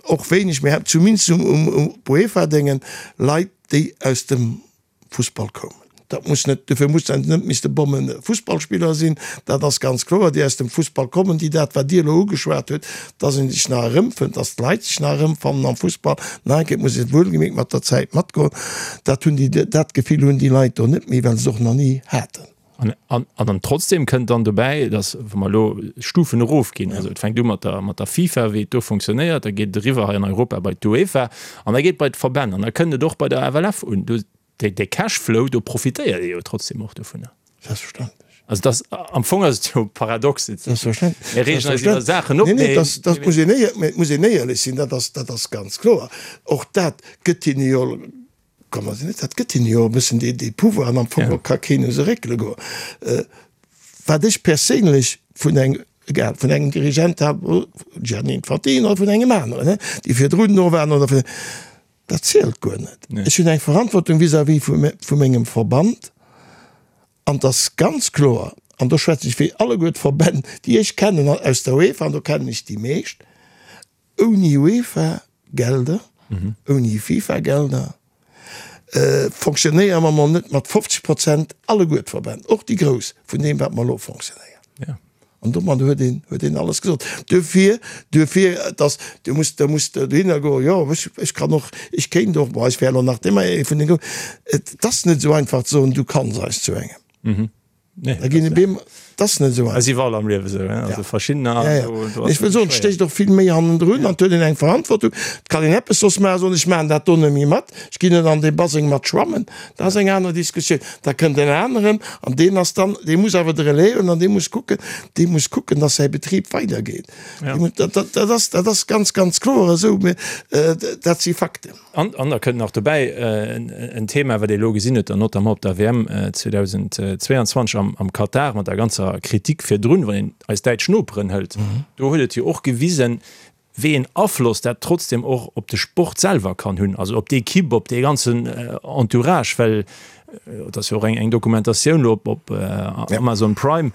Speaker 5: och wéineg, mä zumindest um UEFA-Déngen, Leit, déi aus dem Fussball koumen. Dat muss net, dofir muss dat net misste Bomme Fussballspiller sinn, dat ass ganz kloer, déi aus dem Fussball kommen, déi dat, wat Dir elo ugeschwat hutt, dass ee sech nach erëmfënnt, dass d'Leit sech nach erëmfannen am Fussball, nach eng Kéier, et muss ee wuelgemierkt mat der Zäit matgoen, dat hunn déi, dat Gefill hunn déi Leit do net méi, well se et och nach ni haten.
Speaker 4: An, an trotzdem kënnt dann dobäi, dass, wa mer elo Stufen erofginn, also et fänkt u mat der, mat der FIFA, wéi et do funktionéiert, da geet et eriwwer hei an Europa bei d'UEFA an da geet et bei d'Verbänn an da kënnt et och bei der FLF un. Do, dee, dee Cashflow, do profitéiert ee jo trotzdem och dovunner.
Speaker 5: Selbstverständlech.
Speaker 4: Also dass, am Fong ass et jo paradox.
Speaker 5: Selbstverständlech.
Speaker 4: Mir reegen eis iwwer Saachen op,
Speaker 5: Nee, nee, dass, dass muss een éier, mä et muss een éierlech sinn, dat ass, dat ass ganz kloer. Och dat gëtt hinne jo Komm, also net, dat gëtt hinne jo e bëssen dee, dee Pouvoir an am Fong ja. ka keen u se réckele goen. Äh, wat ech perséinlech vun eng, egal, vun engem Dirigent hat, Gianni Infantino oder vun engem aneren, ne, déi virdrun do waren oder vun, dat zielt guer net. Nee. Ech hunn eng Verantwortung vis-à-vis vu, vu mengem Verband an et ass ganz kloer, an do schwätze ech fir alleguer d'Verbänn, déi ech kennen aus der UEFA, an do kennen ech déi meescht, Ouni UEFA-Gelder, ouni FIFA-Gelder fonctionnéiere mer mol net mat 50 Prozent alleguer d'Verbänn, och déi grouss, vun deem wat mer elo fonctionnéieren. An domat huet een, huet een alles gesot. Duerfir, duerfir, dass, du muss, da muss de dohinner goen, jo, ech, ech kann och, ech kéint och, bon, ech wär elo nach ëmmer ee vun den Groussen. Et ass net esou einfach ze soen, du kanns eis zu engem.
Speaker 4: Nee,
Speaker 5: Da ginn e Beem, dat ass net esou
Speaker 4: einfach. Ass iwwerall am Liewe esou, hein? Also verschiddener.
Speaker 5: Ja, ja. Do ass Ech wëll soen, et stécht och vill méi hannendrun an et huet een eng Verantwortung. Et kann een eppes soss maachen, soen, ech maachen dat do net méi mat, ech ginn net an dee Baseng mat schwammen. Dat ass eng aner Diskussioun. Da kënnt en aneren an deen ass dann, dee muss awer de Relais hunn an dee muss kucken, dee muss kucken, datt säi Betrib weidergeet. Ja. Dat, dat, dat ass, dat ass ganz, ganz kloer esou. Mä dat si Fakten.
Speaker 4: An, an da kënnt nach dobäi en Thema, wat ee elo gesinn huet, dann notamment op der WM 2022 am, am Katar, mat der ganzer Kritik virdrun, wann een eis däitsch Noperen hëlt, do huet et jo och gewisen, wéi een Afloss dat trotzdem och op de Sport selwer kann hunn, also op d'Ekipp, op dee ganzen Entourage, well et ass jo och eng, eng Dokumentatioun elo op, op Amazon Prime,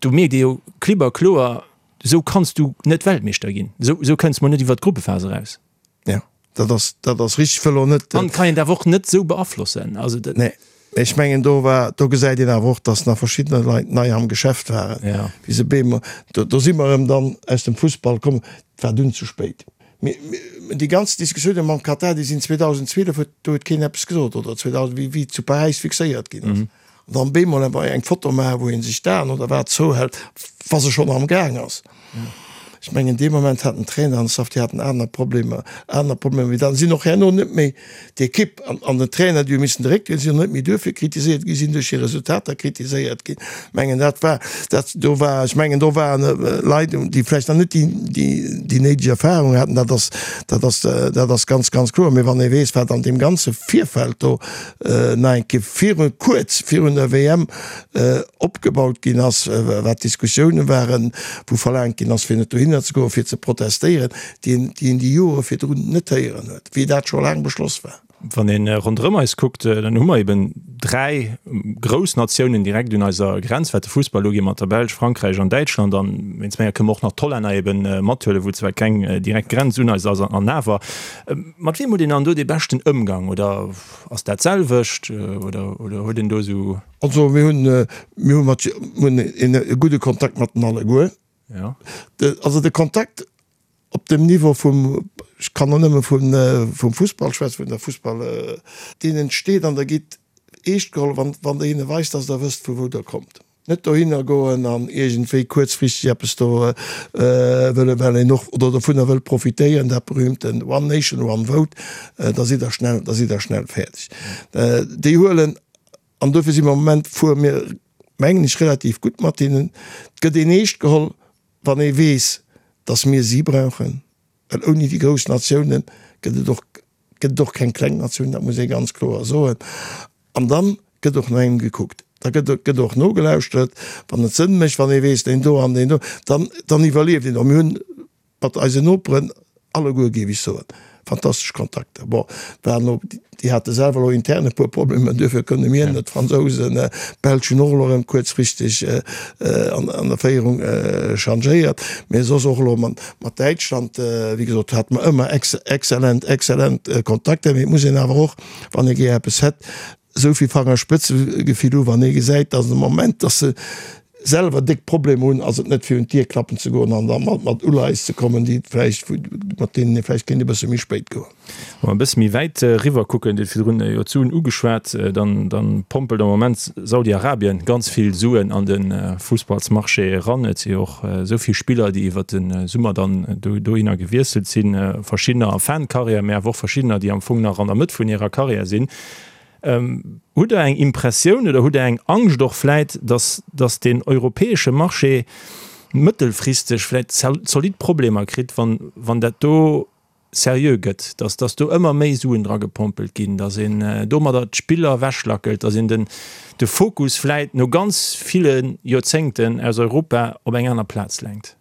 Speaker 4: do mierkt ee jo klipp a kloer, esou kanns du net Weltmeeschter ginn, esou, esou kënns mol net iwwer d'Gruppephas eraus.
Speaker 5: Ja, dat ass, dat ass richtig, wëll och net.
Speaker 4: An kann een awer och net esou beaflossen. Also dat.
Speaker 5: Nee, mee ech mengen do war, do gesäit een awer och, datt nach verschiddener Leit nei am Geschäft waren,
Speaker 4: Ja.
Speaker 5: wéi se beem, do, do si mer erëm dann aus dem Fussball komm, et war dunn ze spéit. Mee, mee déi ganz Diskussiounen mam Katar, déi sinn 2012, huet, do huet keen eppes gesot, oder 2000, wéi, wéi zu Paräis fixéiert ginn ass. An dann bemol awer eng Foto maachen, wou ee sech d'Aen oder wat zouhält, wa se schonn am Gaang ass. Ech mengen, dee Moment hat den Trainer an de Staff, déi haten aner Problemer, aner Problemer wéi dat. Sinn och herno net méi d'Ekipp an, an den Trainer, déi hu missen de Réck dréinen, sinn och net méi duerfir kritiséiert ginn, sinn duerch hir Resultater kritiséiert ginn. Ech mengen, dat war, dat do war, ech mengen, do waren Leit, déi vläicht nach net déi, déi, déi néideg Erfahrung haten. Dat ass, dat ass, dat ass ganz, ganz kloer. Mee wann ee weess, wat an deem ganze Virfeld do nach eng Kéier virun, kuerz virun der WM opgebaut ginn ass, wat d'Diskussioune waren, wou verlaangt ginn ass, fir net dohinner ze goen, fir ze protestéieren, déi een, déi een déi Jore virdrun net héieren huet, wéi dat scho laang beschloss war.
Speaker 4: Wann ee ronderëm eis kuckt, dann hu mer eben 3 grouss Natiounen direkt un eiser Grenz, wat de Fussball ugeet, mat der Belsch, Frankräich an Däitschland. An wéinst menger kënne mer och nach d'Hollänner eben mathuelen, wou zwar keng direkt Grenz un eis ass, an awer. Mat wiem huet een dann do dee beschten Ëmgang? Oder ass dat d'selwecht? Oder, oder huet een do esou.
Speaker 5: Also mir hunn, mir hu mat, mir hunn een e gudde Kontakt mat den alleguer.
Speaker 4: Ja.
Speaker 5: De, also de Kontakt op dem Niveau vum, ech kann och nëmme vun, vum Fussball schwätzen, vun der Fussball, deen entsteet an der gitt eescht geholl, wann, wann Der hinne weist, dass Der wësst vu wou Der kommt. Net dohinner goen an iergendwéi kuerzfristeg eppes do wëllen, well een och oder dovunner wëllt profitéieren, dat berühmten One Nation, One Vote, da sidd Der schnell, da sidd Der schnell fäerdeg. Déi huelen, an dofir si mer am Moment, fuere mir, mengen ech, relativ gutt mat hinnen. Et gëtt een eescht geholl, wann ee weess, datt mir si brauchen, well ouni déi grouss Natiounen gëtt et och, gëtt et och keng kleng Natioun, dat muss ee ganz kloer soen. An dann gëtt och no engem gekuckt. Da gëtt, gëtt och nogelauschtert, wann et Sënn mécht, wann ee weess, deen do an deen do, dann, dann iwwerlieft een och. Mir hunn mat eisen Noperen alleguer, géif ech soen, fantastesch Kontakter. Bon, et waren elo, déi hate selwer elo intern e puer Problemer, duerfir kënne mir net, d'Fransousen, d'Belsch hunn och elo erëm kuerzfristeg an, an der Féierung changéiert. Mee soss och elo mat, mat Däitschland, wéi gesot, hate mer ëmmer exzellent, exzellent Kontakter. Mee et muss een awer och, wann ee gär eppes hätt, esou vill Fangerspëtzegefill hu wann ee gesäit, datt am Moment, datt se selwer déck Problemer hunn, ass et net fir un d'Dier klappen ze goen an da mat mat Uleies ze kommen, déi vläicht, mat deenen ee vläicht kéint e bësse méi spéit goen.
Speaker 4: Wa mer e bësse méi wäit eriwwer kucken, Dir hutt virdrun jo d'Suen ugeschwat, dann dann pompelt am Moment Saudi-Arabien ganz vill Suen an de Fussballsmarché eran. Et si jo och esou vill Spiller, déi iwwert de Summer dann dohinner gewiesselt sinn, verschiddener a Fin de carrière, mä awer och verschiddener, déi am Fong nach an der Mëtt vun hirer Carrière sinn. Hutt Der eng Impressioun oder hutt Der eng Angscht och vläit, datt, datt deen europäesche Marché mëttelfristeg vläit zolidd Problemer kritt, wann, wann dat do seriö gëtt, datt, datt do ëmmer méi Suen dragepompelt ginn, datt een domadder d'Spiller ewechlackelt, datt een den, de Fokus vläit no ganz ville Joerzéngten aus Europa op eng aner Plaz lenkt?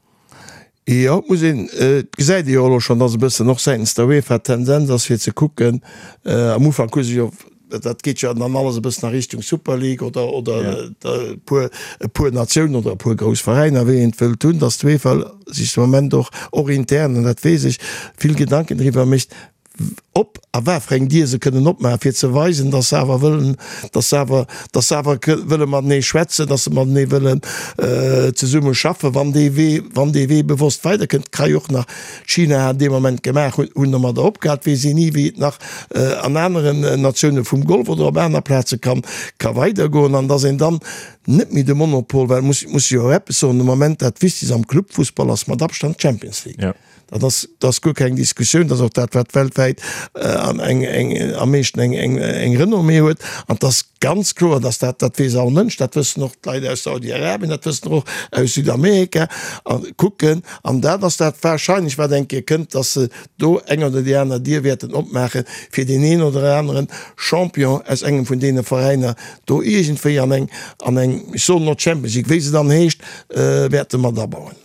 Speaker 5: Jo, et muss een, et gesäit ee jo elo schonn, datt e bëssen och säitens der UEFA d'Tendenz ass fir ze kucken, am Ufank hu se jo, dat geet jo dann alles e bëssen a Richtung Super League oder oder e puer e puer Natiounen oder e puer grouss Veräiner, wéi een et wëllt hunn, datt d'UEFA sech de Moment och, och intern, an dat weess ech, vill Gedanken driwwer mécht, op a wat fir eng Dier se kënnen opmaachen, fir ze weisen, dass se awer wëllen, dass se awer, dass se awer wëlle matenee schwätzen, dass se matenee wëllen zesumme schaffen, wann dee Wee, wann dee Wee bewosst weiderkënnt. Ka jo och nach China hat dee Moment gemaach, hunn, hunn domadder opgehal, weess een ni, wéi et nach an aneren Natioune vum Golf oder op aner Plaze kann, ka weidergoen an dass een dann net méi de Monopol, well muss, muss jo och eppes soen, de Moment dat Wichtegst am Clubfussball ass mat Abstand d'Champions League. Dat ass, dat ass guer keng Diskussioun. Dat ass och dat, wat weltwäit am eng, eng, am meeschten eng, eng, eng Renommée huet. An et ass ganz kloer, dass dat, dat weess all Mënsch, dat wëssen och d'Leit aus Saudi-Arabien, dat wëssen och aus Südamerika a kucken. An dat ass dat wahrscheinlech, wat eng Kéier kënnt, dass se do eng oder déi aner Dier wäerten opmaachen, fir deen een oder aneren Champion aus engem vun deene Veräiner do iergendwéi an eng, an eng, ech soen elo Champions League, wéi se dann heescht, wäerte mat abauen.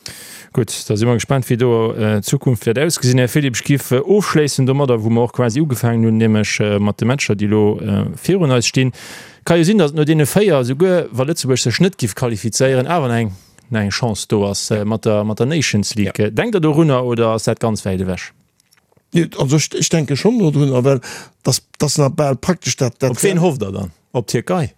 Speaker 4: Gutt, da si mer gespaant, wéi do d'Zukunft wäert ausgesinn. Här Philipp, ech géif ofschléissen domadder, wou mer och quasi ugefaangen hunn, nämlech mat de Matcher, déi elo virun eis stinn. Ka jo sinn, datt et no deene 4, esouguer wa Lëtzebuerg sech net géif qualifizéieren, awer nach eng, nach eng Chance do ass mat der, mat der Nations League. Denkt Der dorunner oder ass dat ganz wäit ewech?
Speaker 5: Also ech, ech denke schonn dodrunner, well dass, dass nach bal praktesch dat,
Speaker 4: dat. Op ween hofft Der dann? Op d'Tierkei?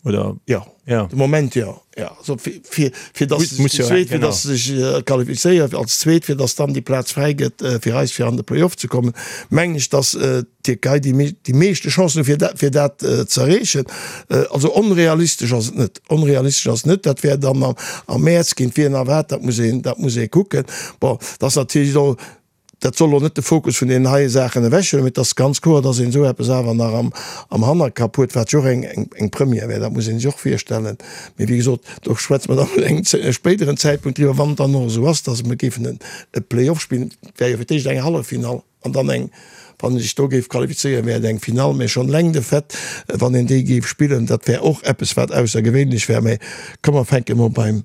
Speaker 4: Oder?
Speaker 5: Ja, ja. De Moment ja. Ja. Also fir, fir, fir dass se sich, zweet, fir dass se sech äh, qualifizéiert als zweet, fir dass dann déi Plaz fräi gëtt äh, fir eis fir an de Playoff ze kommen, mengen ech, dass äh, d'Tierkei déi, déi meeschte Chancen fir dat, fir dat äh, ze erreechen. Äh, also onrealistesch ass et net. Onrealistesch ass net. Dat wär dann am, am Mäerz géint wien a wat, dat muss een, dat muss ee kucken. Bon, dat ass natierlech elo Dat soll elo net de Fokus vun deenen heie Saachen ewechhuelen, mee et ass ganz kloer, dass een esou eppes awer nach am Hannerkapp huet, wat jo och eng Première wär, dat muss ee sech och virstellen. Mee wéi gesot, do schwätze mer dann un engem spéideren Zäitpunkt driwwer, wann et dann och esou ass, dass mer géifen e Play-off spillen. Et wär jo fir d'éischt eng Halleffinall an dann eng, wann ee sech do géif qualifizéieren, wär et eng Finall. Mee schonn eleng de Fait, wann een déi géif spillen, dat wär och eppes, wat aussergewéinlech wär. Mee komm, mer fänke mol beim.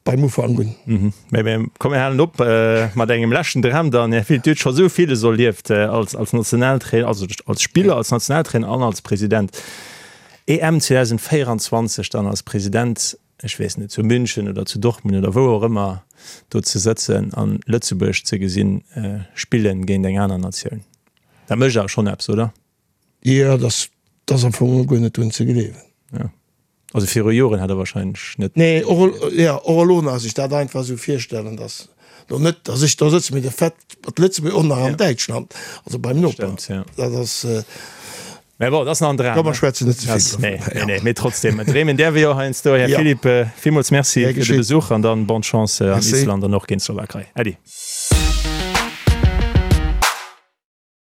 Speaker 5: Beim
Speaker 4: Ufank un. Mä komm mir halen op mat engem leschten Dram dann. Här Filipp, Dir hutt scho sou villes erlieft als als Nationaltrainer, also als Spiller, als Nationaltrainer an als President. EM 2024 dann als President, ech weess net, zu München oder zu Dortmund oder wou och ëmmer do ze sëtzen an Lëtzebuerg ze gesinn spillen géint eng aner Natioun, dat mécht awer schonn eppes, oder?
Speaker 5: Jo, dat ass am Fong guer net drun ze gleewen.
Speaker 4: Jo. Also viru Joren hätt Der wahrscheinlech net.
Speaker 5: Nee, och, jo, och elo nach sech dat einfach esou virstellen, dass lo net, dass ech do sëtzen, mee de Fait mat Lëtzebuerg och nach an Däitschland, also beim Noper,
Speaker 4: Stëmmt, jo. dat ass. Mä bon, dat ass nach en Dram.
Speaker 5: Komm, mer schwätzen net ze vill
Speaker 4: dovun. Nee, nee, nee, mee trotzdem, dreemen däerf ee jo heiansdo. Här Philippe, villmools Merci fir de Besuch an dann bonne Chance an Island an och géint d'Slowakei. Äddi.